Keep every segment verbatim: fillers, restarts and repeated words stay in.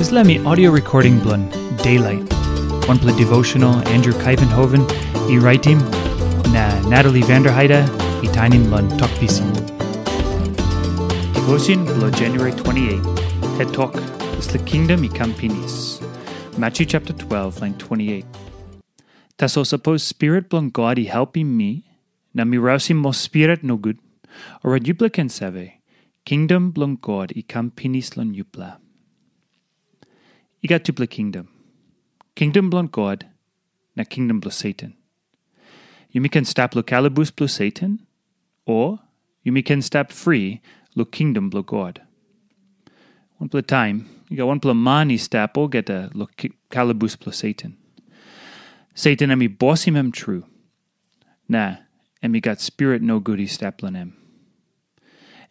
Dispela mi audio recording bilong Daylight, wanpela devotional Andrew Kaivenhoven i raitim, na Natalie Vanderheide i tainim long Tok Pisin. Devotion bilong January twenty-eight, het tok, Dispela Kingdom i Kam Pinis. Matthew chapter twelve, line twenty-eight. Tasol sapos Spirit bilong God i helpim mi, na mi rausim ol spirit nogut, orait yupela ken save, kingdom bilong God i kam pinis long yupela. I gat tupela kingdom. Kingdom bilong God, na kingdom bilong Satan. Yumi ken stap long kalabus bilong Satan, o yumi ken stap fri long kingdom bilong God. Wanpela taim, i gat wanpela man i stap olgeta long ki- kalabus bilong Satan. Satan em i bosim em tru, na em i gat spirit nogut i stap long em.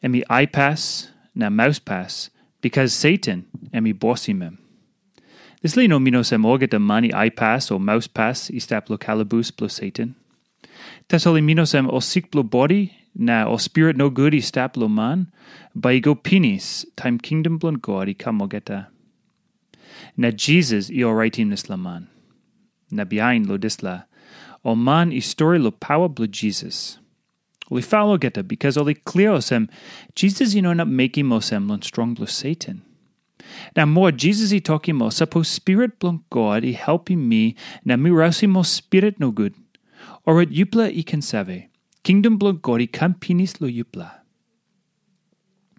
Em i aipas na mauspas, bikas Satan em i bosim em. Dispela i no min olsem olgeta man i aipas o mauspas i stap long kalabus bilong Satan. Tasol i min olsem ol sik bilong bodi na ol spirit nogut i stap long man, bai i go pinis taim kingdom bilong God i kam olgeta. Na Jisas i oraitim dispela man. Na bihain long dispela, ol man i stori long pawa bilong Jisas. Ol i fal olgeta bikas ol i klia olsem, Jisas i no inap mekim olsem long strong bilong Satan. Na moa Jisas i tokim ol, sapos Spirit bilong God i helpim mi na mi rausim ol spirit nogut, orait yupela i ken save, kingdom bilong God i kam pinis long yupela.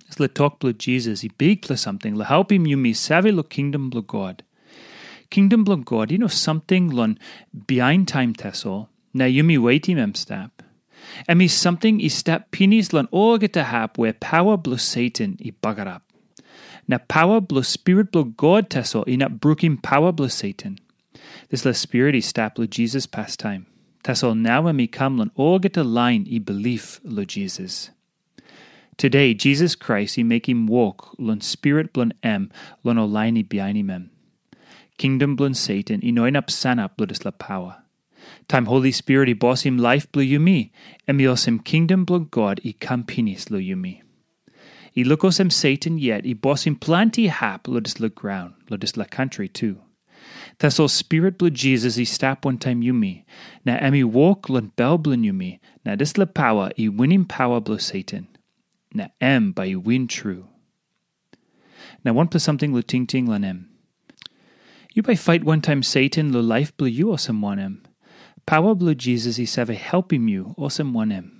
Dispela tok bilong Jisas i bikpela samting long helpim yumi save long kingdom bilong God. Kingdom bilong God i no samting long bihain taim tasol, na yumi wetim em stap. Em i samting i stap pinis long olgeta hap where pawa bilong Satan i bagarap. Na pawa bilong Spirit bilong God tasol inap brukim pawa bilong Satan. Dispela Spirit i stap long Jisas pastaim. Tasol nau em i kam long olgeta lain i bilip long Jisas. Today, Jisas Krais i mekim wok long Spirit bilong em long ol lain i bihainim em. Kingdom bilong Satan i no inap sanap long dispela pawa. Taim Holi Spirit i bosim laip bilong yumi, em i olsem kingdom bilong God i kam pinis long yumi. I luk olsem Satan yet i bosim planti hap long dispela graun, long dispela kantri tu. Tasol Spirit bilong Jisas i stap wantaim yumi, na em i wok long bel bilong yumi, na dispela pawa i winim pawa bilong Satan. Na em bai i win tru. Na wanpela samting long tingting long em. Yu bai fait wantaim Satan long laip bilong yu olsem wanem? Pawa bilong Jisas i save helpim yu olsem wanem?